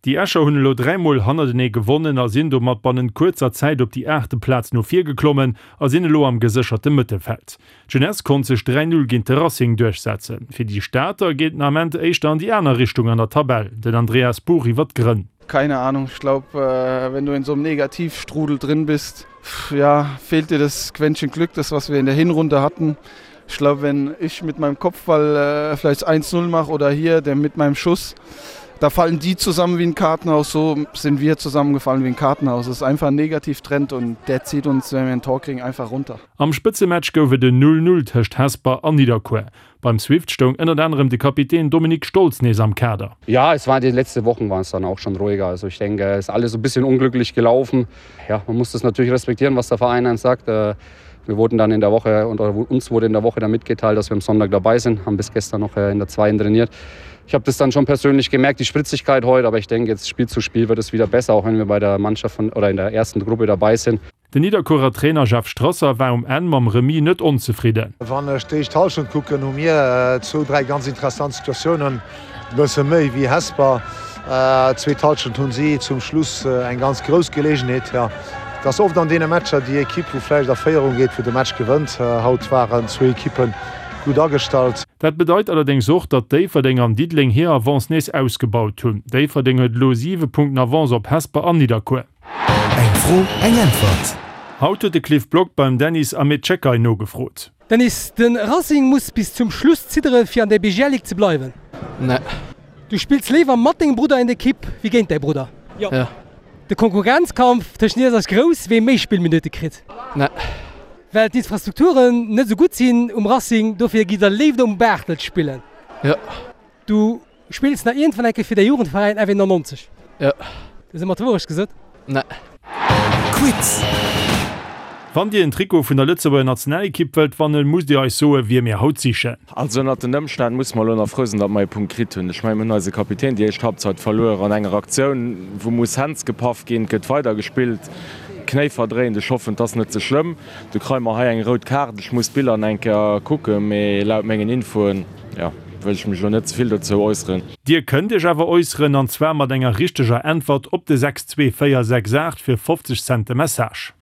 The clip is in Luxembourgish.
Déi Escher hunn elo 3 Mol hannertenee gewonnen a sinn domat bannent kuerzer Zäit op déi aachte Plaz no vir geklommen a sinn elo am gesécherte Mëttelfeld. D'Jeunesse konnt sech 3, 0 géint de Racing duerchsetzen. Fir déi Stater geet den Ament éischter an déi aner Richtung an der Tabell. Den Andreas Buch iwwer d'Grënn. Keine Ahnung, ich glaub wenn du in so einem Negativstrudel drin bist, ja, fehlt dir das Quäntchen Glück, das was wir in der Hinrunde hatten. Ich glaub wenn ich mit meinem Kopfball vielleicht 1, 0 mach oder hier der mit meinem Schuss, da fallen die zusammen wie ein Kartenhaus, so sind wir zusammengefallen wie ein Kartenhaus. Es ist einfach ein Negativtrend und der zieht uns, wenn wir ein Tor kriegen, einfach runter. Am Spëtzematch gouf et en 0, 0 tëscht Hesper an Nidderkuer. Beim Swift stoung ënnert anerem de Kapitän Dominik Stolz nees am Kader. Ja, es war die letzte Wochen waren es dann auch schon ruhiger. Also ich denke, es ist alles so bisschen unglücklich gelaufen. Ja, man muss das natürlich respektieren, was der Verein einem sagt. Äh, wir wurden dann in der Woche und uns wurde in der Woche dann mitgeteilt, dass wir am Sonntag dabei sind, haben bis gestern noch äh, in der zweiten trainiert. Ich habe das dann schon persönlich gemerkt, die Spritzigkeit heute, aber ich denke, jetzt Spiel zu Spiel wird es wieder besser, auch wenn wir bei der Mannschaft von, oder in der ersten Gruppe dabei sind. Den Nidderkuerer Trainer Jeff Strasser war um Enn mam Remis net onzefridden. Wann ech d'éischt Hallschent kucken, hu mir zwou, dräi ganz interessant Situatiounen, e bësse méi wéi Hesper. Zweet Hallschent hunn si zum Schluss eng ganz grouss Geleegenheet. Jo, et ass oft an deene Matcher déi Ekipp, wou vläicht a Féierung geet, wou de Match gewënnt. Haut waren zwou Ekippe gutt agestallt. Dat bedeit allerdéngs och, datt Déifferdeng an Diddeleng hir Avance nees ausgebaut hunn. Déifferdeng huet elo 7 Punkten Avance op Hesper an Nidderkuer. Eng Fro, eng Äntwert. Haut huet de Cliff Block beim Dennis Amechekai nogefrot. Dennis, de Racing muss bis zum Schluss ziddere fir an der BGL Ligue ze bleiwen. Nee. Du spills léiwer mat dengem Brudder en Ekipp wéi géint däi Brudder? Jo. De Konkurrenzkampf tëschent iech ass grouss, wee méi Spillminutte kritt? Nee. Well d'Infrastrukturen net esou gutt sinn um Racing, dofir gitt der léiwer um Bartelt spillen? Jo. Du Spills nach iergendwann eng Kéier fir däi Jugendveräin FW 99? Jo. Du hues ëmmer d'Wourecht gesot? Nee. Quiz! Wann dir en Trikot vun der Lëtzebuerger Nationalekipp wëllt wannen, musst dir eis soen, wie mir haut sichen. Also ënnert den Ëmstänn musse mer elo nach frou sinn, datt mer ee Punkt kritt hunn. Ech mengen, mir hunn eise Kapitän déi éischt Halbzeit verluer an enger Aktioun, wou muss Händs gepaff ginn. Et gëtt weider gespillt, Knéi verdréint. Ech hoffen, et ass net ze schlëmm. Du kréie mer hei eng rout Kaart. Ech muss d'Biller nach eng Kéier kucken, mee laut mengen Infoen, jo, wëll ech mech elo net ze vill dozou äusseren. Dir kënnt Iech awer äusseren, an zwar mat enger richteger Äntwert op de 62468 fir 50 Cent de Message.